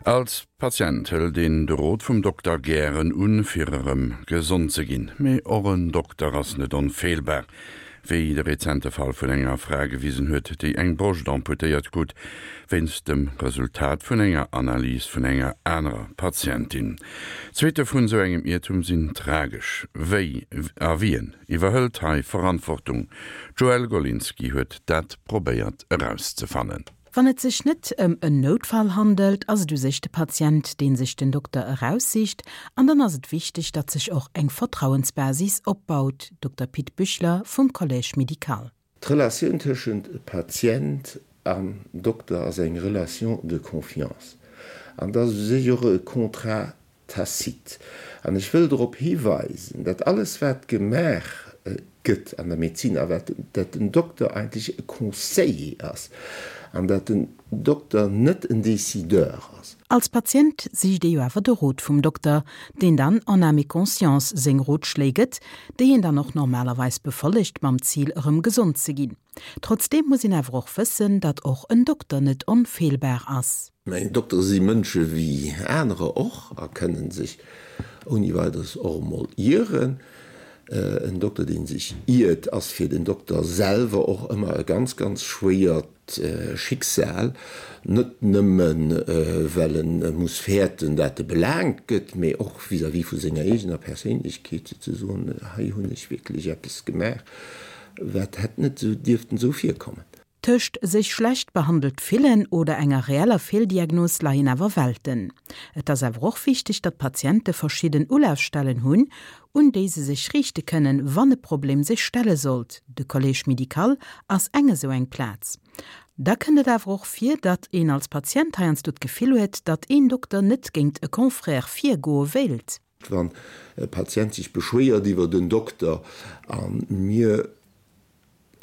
Als Patient hëlt een de Rot vum Dokter gären un, fir erëm gesond ze ginn. Mee och en Dokter ass net onfeelbar, wéi de rezente Fall vun enger Fra gewisen huet, déi eng Broscht amputéiert krut wéinst dem Resultat vun enger Analys vun enger anerer Patientin. D'Suitte vun esou engem Iertum sinn tragesch. Wéi a wien iwwerhëlt hei Verantwortung? D'Joëlle Golinski huet dat probéiert erauszefannen. Wann et sech net ëm en Noutfall handelt, ass et u sech de Patient, dee sech den Dokter eraussicht an dann ass et wichteg, datt sech och eng Vertrauensbasis opbaut, Dokter Pit Büchler vum Collège médical. D'Relatioun tëschent Patient an Dokter ass eng Relation de confiance an dat ass u sech och e Contrat tacite. An ech wëll drop hiweisen, dat alles wat gemaach gëtt an der Medezin a wat, dat den Dokter eigentlech e Conseiller ass an dat den Dokter net en Décideur ass. Als Patient sicht ee jo awer de Rot vum Dokter, deen dann en âme et conscience seng Rotschléi gëtt, déi een dann och normalerweis befollegt mam Zil erëm gesond ze ginn. Trotzdeem muss een awer och wëssen, datt och en Dokter net onfeelbar ass. Mä Doktere si Mënsche wéi anerer och a kënnen sech ouni Weideres och emol ieren. En Dokter, dee sech iert, ass fir den Dokter selwer och ëmmer e ganz, ganz schwéiert Schicksal. Net nëmmen, well e muss fäerten, dat e belaangt gëtt, mee och vis-à-vis vu senger eegener Perséinlechkeet, souzesoen, Hei hunn ech wierklech eppes gemaach, Wat hätt net esou dierften esou virkommen. Tëscht sech schlecht behandelt fillen oder enger reeller Feeldiagnos leien awer Welten. Et ass awer och wichteg, datt d'Patiente verschidden Ulafstellen hunn, un déi se sech riichte kënnen, wann e Problem sech stelle sollt. De Collège médical ass eng esou eng Plaz. Da kënnt et awer och vir, datt een als Patient heiansdo d'Gefill huet, datt een Dokter net géingt e Confrère virgoe wéilt. Wann e Patient sech beschwéiert iwwert en Dokter a mir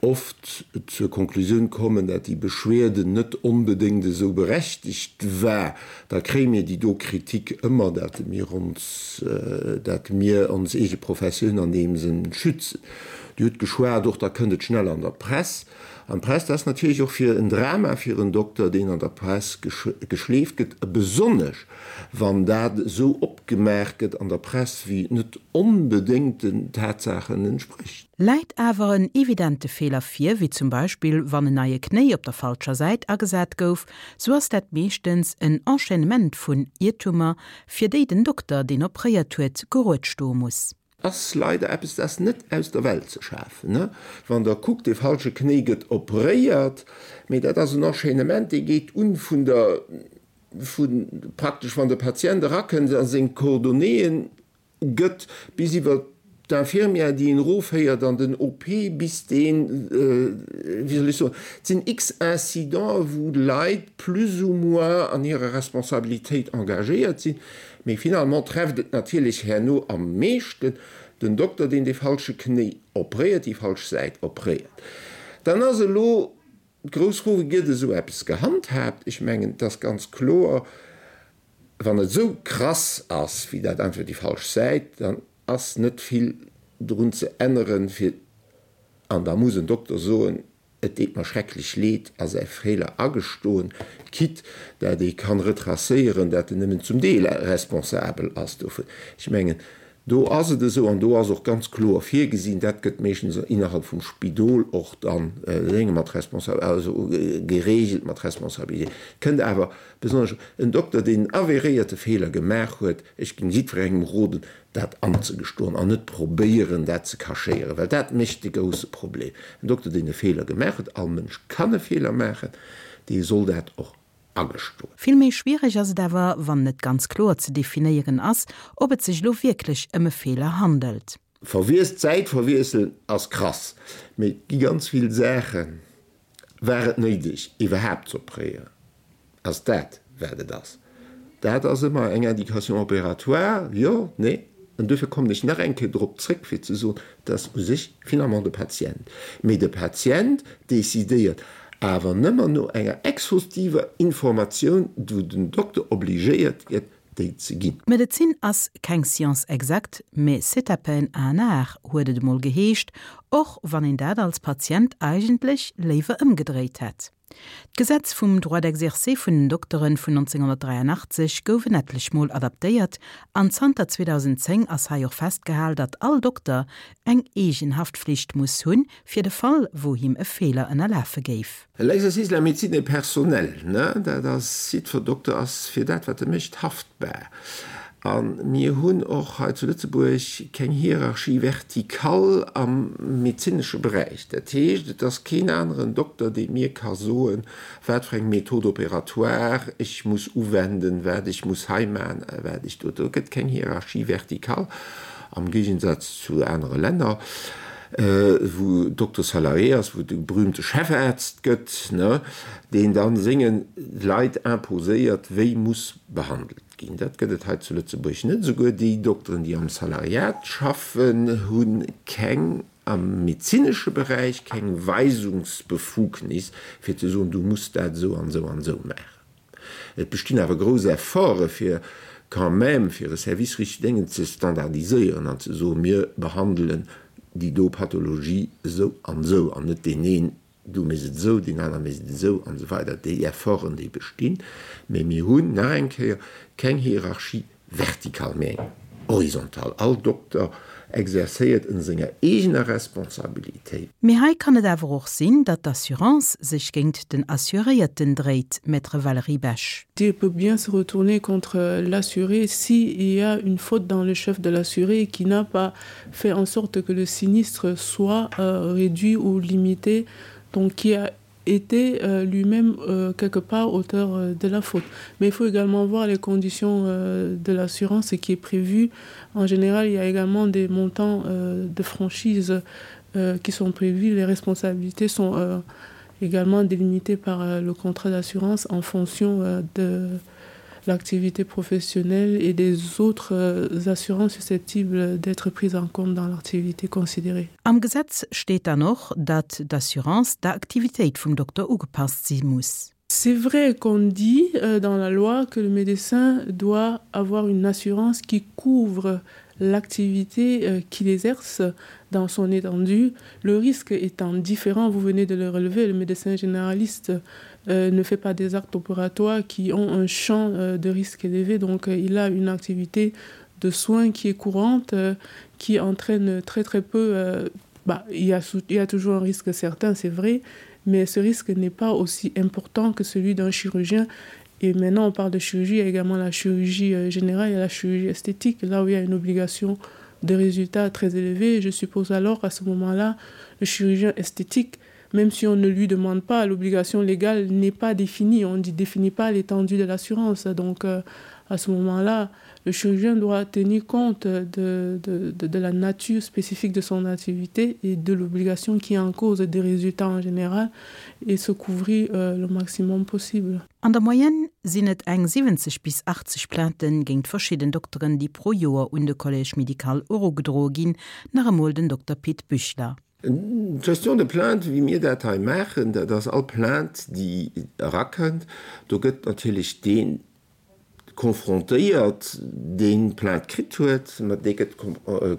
oft zur Konklusioun kommen, dat déi Beschwerde net onbedéngt esou berechtegt war, da kréie mir déi do Kritik ëmmer, dat mir ons, dat mir ons eege Professioun an deem Sënn schützen. Dir hutt geschwat och, da kënnt et schnell an der Press. An d'Press, dat ass natierlech och fir en Drama fir en Dokter, deen an der Press geschleeft gëtt, besonnesch wann dat esou opgemaach gëtt an der Press, wéi et net onbedéngt den Tatsaachen entsprécht. Läit awer en evidente Feeler vir, wéi zum Beispill wann en neie Knéi op der falscher Säit agesat gouf, sou ass dat meeschtens en Enchaînement vun Iertumer, fir déi den Dokter, deen opréiert huet, gerued stoe muss. Ass leider eppes, dat ass net aus der Welt ze schafen. Wann Der kuckt, dee falsche Knéi gëtt opréiert, mee dat ass en Enchaînement, dee geet un vun der, vu praktesch wann de Patient erakënnt a seng Coordonnéeën gëtt, bis iwwer d'Infirmière, déi en erofféiert an den OP, bis deen, wéi soll ech soen, et sinn x Incidenten, wou Leit plus ou moins an hirer Responsabilitéit engagéiert sinn. Mee finalement trefft et natierlech herno am meeschten den Dokter, deen dee falsche Knéi opréiert, déi falsch Säit opréiert. Dann ass elo d'grouss Fro, Wéi gëtt esou eppes gehandhaabt? Ech mengen, et ass ganz kloer, wann et esou krass ass wéi dat einfach déi falsch Säit, dann ass net vill drun ze änneren, fir, an da muss en Dokter soen, Et deet mer schrecklech leed a säi Feeler agestoen, quitte dat ee kann retracéieren, dat en nëmmen zum Deel responsabel ass dovun. Ech mengen, do ass et esou an do ass och ganz kloer virgesinn, dat gëtt meeschtens innerhalb vum Spidol och dann dénge mat Responsa-, also geregelt mat Responsabilité. Kënnt awer besonnesch en Dokter, deen en avéréierte Feeler gemaach huet, ech géing jiddwerengem roden, dat anzegestoen an net probéieren, dat ze cachéieren, well dat mécht de grousse Problem. En Dokter, deen e Feeler gemaach huet, all Mënsch kann e Feeler maachen, dee soll dat och agestoen. Vill méi schwiereg ass et awer, wann net ganz kloer ze definéieren ass, ob et sech elo wierklech ëm e Feeler handelt. Verwiesst, D'Säit verwiesselen ass krass, mee et gi ganz vill Saachen, War et néideg iwwerhaapt z'opréieren? Ass dat wat et ass? Dat ass ëmmer eng Indication opératoire, jo, nee. An duerfir kommen ech nach eng Kéier drop zréck fir ze soen, et ass u sech finalement de Patient. Mee de Patient décidéiert awer nëmmer no enger exhaustiver Informatioun, wou den Dokter obligéiert gëtt, déi ze ginn. D'Medezin ass keng Science exacte, mais c'est à peine un art, huet et emol geheescht, och wann een dat als Patient eigentlech léiwer ëmgedréit hätt. D'Gesetz vum Droit d'exercer vun den Dokteren vun 1983 gouf en etlech Mol adaptéiert an zanter 2010 ass hei och festgehal, datt all Dokter eng eegen Haftflicht muss hunn, fir de Fall, wou him e Feeler ënnerlafe géif. L'exercice de la médecine est personnel, ne? Dat ass, jiddwer Dokter ass fir dat, wat e mécht, haftbar. A mir hunn och hei zu Lëtzebuerg keng Hierarchie verticale am medezinesche Beräich. Dat heescht, et ass keen aneren Dokter, dee mir ka soen, wat fir eng Méthode opératoire ech muss uwenden, wat ech muss hei maachen a wat ech do. Do gëtt keng Hierarchie verticale, am Géigensaz zu anere Länner, wou Docteur salarié ass, wou et e berühmte Chefarzt gëtt, deen da senge Leit imposéiert, wéi muss behandelt ginn. Dat gëtt et hei zu Lëtzebuerg net. Esouguer déi Dokteren, déi am Salariat schaffen, hu keng, am medezinesche Beräich, keng Weisungsbefugnis, fir ze soen, du muss dat esou an esou an esou maachen. Et bestinn awer grouss Efforte fir quand même, fir e Service richteg déngen ze standardiséieren an ze soen, mir behandelen déi do Pathologie esou an esou an net deen een Du méchs et esou, deen aner mécht et esou an esou weider. Déi Efforten, déi bestinn. Mä mir hunn, nach eng Kéier, keng Hierarchie verticale, mä eng horizontale. All Dokter exercéiert ënner senger eegener Responsabilitéit. Mee hei kann et awer och sinn, datt d'Assurance sech géint den Assuréierten dréit, Maître Valérie Besch. Elle peut bien se retourner contre l'assuré si il y a une faute dans le chef de l'assuré qui n'a pas fait en sorte que le sinistre soit euh, réduit ou limité, donc qui a été euh, lui-même euh, quelque part auteur euh, de la faute. Mais il faut également voir les conditions euh, de l'assurance qui est prévu. En général, il y a également des montants euh, de franchise euh, qui sont prévus. Les responsabilités sont euh, également délimitées par euh, le contrat d'assurance en fonction euh, de l'activité professionnelle et des autres euh, assurances susceptibles d'être prises en compte dans l'activité considérée. Am Gesetz steet dann och, datt d'Assurance der Aktivitéit vum Dokter ugepasst si muss. C'est vrai qu'on dit euh, dans la loi que le médecin doit avoir une assurance qui couvre l'activité euh, qu'il exerce dans son étendue. Le risque étant différent, vous venez de le relever, le médecin généraliste euh, ne fait pas des actes opératoires qui ont un champ euh, de risque élevé, donc euh, il a une activité de soins qui est courante, euh, qui entraîne très très peu euh, bah, il, y a, il y a toujours un risque certain, c'est vrai, mais ce risque n'est pas aussi important que celui d'un chirurgien. Et maintenant, on parle de chirurgie, il y a également la chirurgie euh, générale et la chirurgie esthétique, là où il y a une obligation de résultats très élevée. Je suppose alors qu'à ce moment-là, le chirurgien esthétique, même si on ne lui demande pas, l'obligation légale n'est pas définie, on ne définit pas l'étendue de l'assurance. Donc euh, à ce moment-là, le chirurgien doit tenir compte de, de, de, de la nature spécifique de son activité et de l'obligation qui est en cause des résultats en général et se couvrir euh, le maximum possible. An der Moyenne sinn et eng 70 bis 80 Plainten géint verschidden Dokteren, déi pro Joer un de Collège médical erugedroe ginn, nach emol den Dokter Pit Büchler. D'Gestion de plainte, wéi mir dat hei maachen, dat ass all Plainte, déi erakënnt, do gëtt natierlech dee confrontéiert, deen d'Plainte kritt huet, mat dee gëtt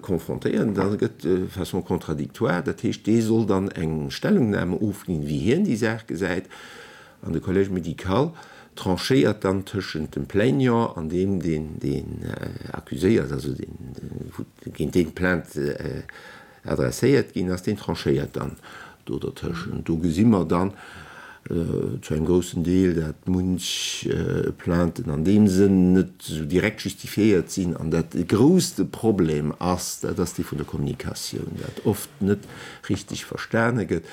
confrontéiert an da gëtt de façon contradictoire, dat heescht, dee soll dann eng Stellungnahme ofginn, wéi hien déi Saach gesäit, an de Collège médical tranchéiert dann tëschent dem Plaignant an deem, deen deen accuséiert, also deen, géint deen d'Plainte adresséiert ginn ass, deen tranchéiert dann do dertëschent. Do gesi mer dann zu engem groussen Deel, dat munch Plainten an deem Sënn net esou direkt justifiéiert sinn an dat de grousste Problem ass, dat ass dee vun der Kommunikatioun, dat oft net richtig verstane gëtt,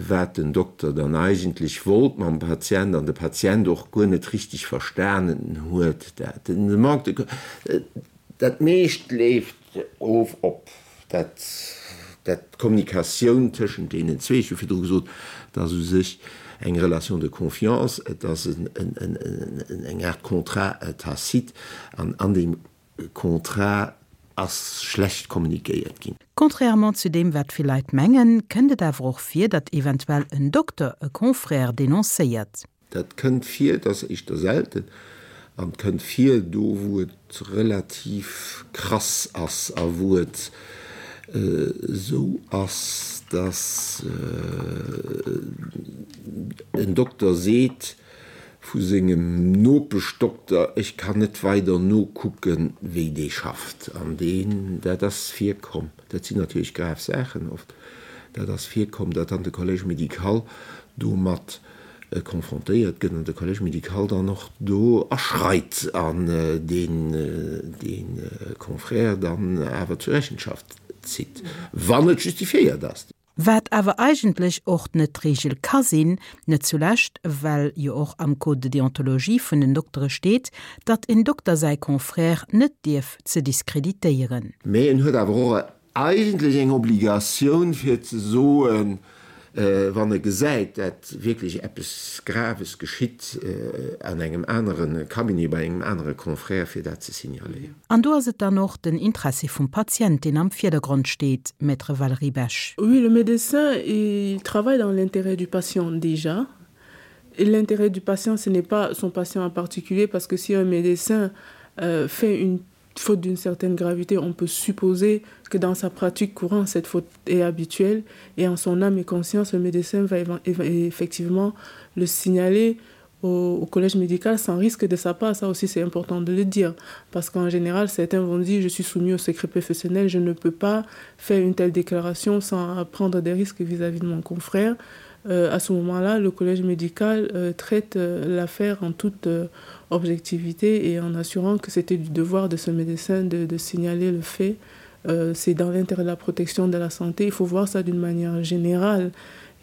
wat den Dokter dann eigentlech wollt mam Patient an de Patient och guer net richtig verstanen huet. Dat de Manque de, dat meescht leeft Of op dat dat d'Kommunikatioun tëschent deenen zwee, ech hu virdru gesot, et ass u sech eng Relation de confiance, et ass eng Aart Contrat tacite an an deem Contrat ass schlecht kommunikéiert ginn. Contrairement zu deem wat vill Leit mengen, kënnt et awer och vir, datt eventuell en Dokter e Confrère denoncéiert. Dat kënnt vir, et ass éischter selten an et kënnt vir do wou et relativ krass ass a wou et. Esou ass, dass en Dokter seet vu sengem Nopeschdokter, ech kann net weider nokucken, wéi dee schafft. An deen, dat ass virkomm, dat sinn natierlech grav Saachen oft, dat ass virkomm, datt dann de Collège médical domat confrontéiert gëtt an de Collège médical dann och do aschreit an deen dee Confrère dann awer zur Rechenschaft zitt, wann et justifiéiert ass. Wat awer eigentlech och net d'Regel ka sinn, net zulescht well jo och am Code de déontologie vun den Doktere steet, datt en Dokter säi Confrère net dierf ze diskreditéieren. Mä en huet awer och eigentlech eng Obligatioun fir ze soen, wann e gesäit, dat wierklech eppes Graves geschitt an engem anere Cabinet, bei engem anere Confrère, fir dat ze signaléieren. An do ass et dann och den Interessi vum Patient, deen am Virdergrond steet, Maître Valérie Besch. Oui, le médecin, il travaille dans l'intérêt du patient déjà. Et l'intérêt du patient, ce n'est pas son patient en particulier, parce que si un médecin euh, fait une faute d'une certaine gravité, on peut supposer que dans sa pratique courante, cette faute est habituelle et en son âme et conscience, le médecin va effectivement le signaler au, au collège médical sans risque de sa part. Ça aussi, c'est important de le dire parce qu'en général, certains vont dire je suis soumis au secret professionnel, je ne peux pas faire une telle déclaration sans prendre des risques vis-à-vis -vis de mon confrère. Euh, à ce moment-là, le collège médical euh, traite euh, l'affaire en toute euh, objectivité et en assurant que c'était du devoir de ce médecin de, de signaler le fait. Euh, c'est dans l'intérêt de la protection de la santé. Il faut voir ça d'une manière générale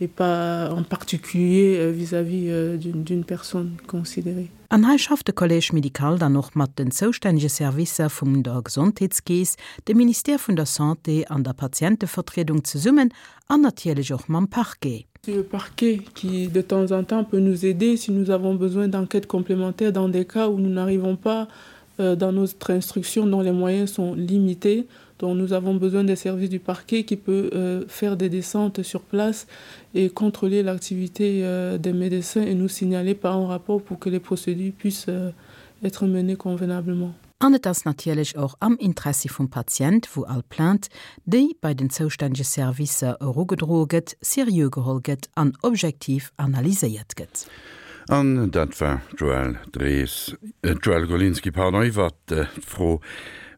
et pas en particulier euh, vis-à-vis euh, d'une personne considérée. An hei schafft de Collège médical dann och mat den zoustännege Servicer vum der Gesondheetskeess, dem Ministère vun der Santé an der Patientevertriedung zesummen an natierlech och mam Parquet. C'est le parquet qui de temps en temps peut nous aider si nous avons besoin d'enquêtes complémentaires dans des cas où nous n'arrivons pas euh, dans notre instruction dont les moyens sont limités dont nous avons besoin des services du parquet qui peut euh, faire des descentes sur place et contrôler l'activité euh, des médecins et nous signaler par un rapport pour que les procédures puissent euh, être menées convenablement. An et ass natierlech och am Interessi vum Patient, wou all Plainte, déi bei den zoustännege Servicer erugedroe gëtt, seriö geholl gëtt an objektiv analyséiert gëtt. An dat war d'Joëlle Drees, d'Joëlle Golinski, pardon, iwwert d'Fro,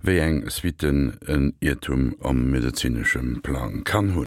wéi eng Suitten en Iertum am medezinesche Plang kann hunn.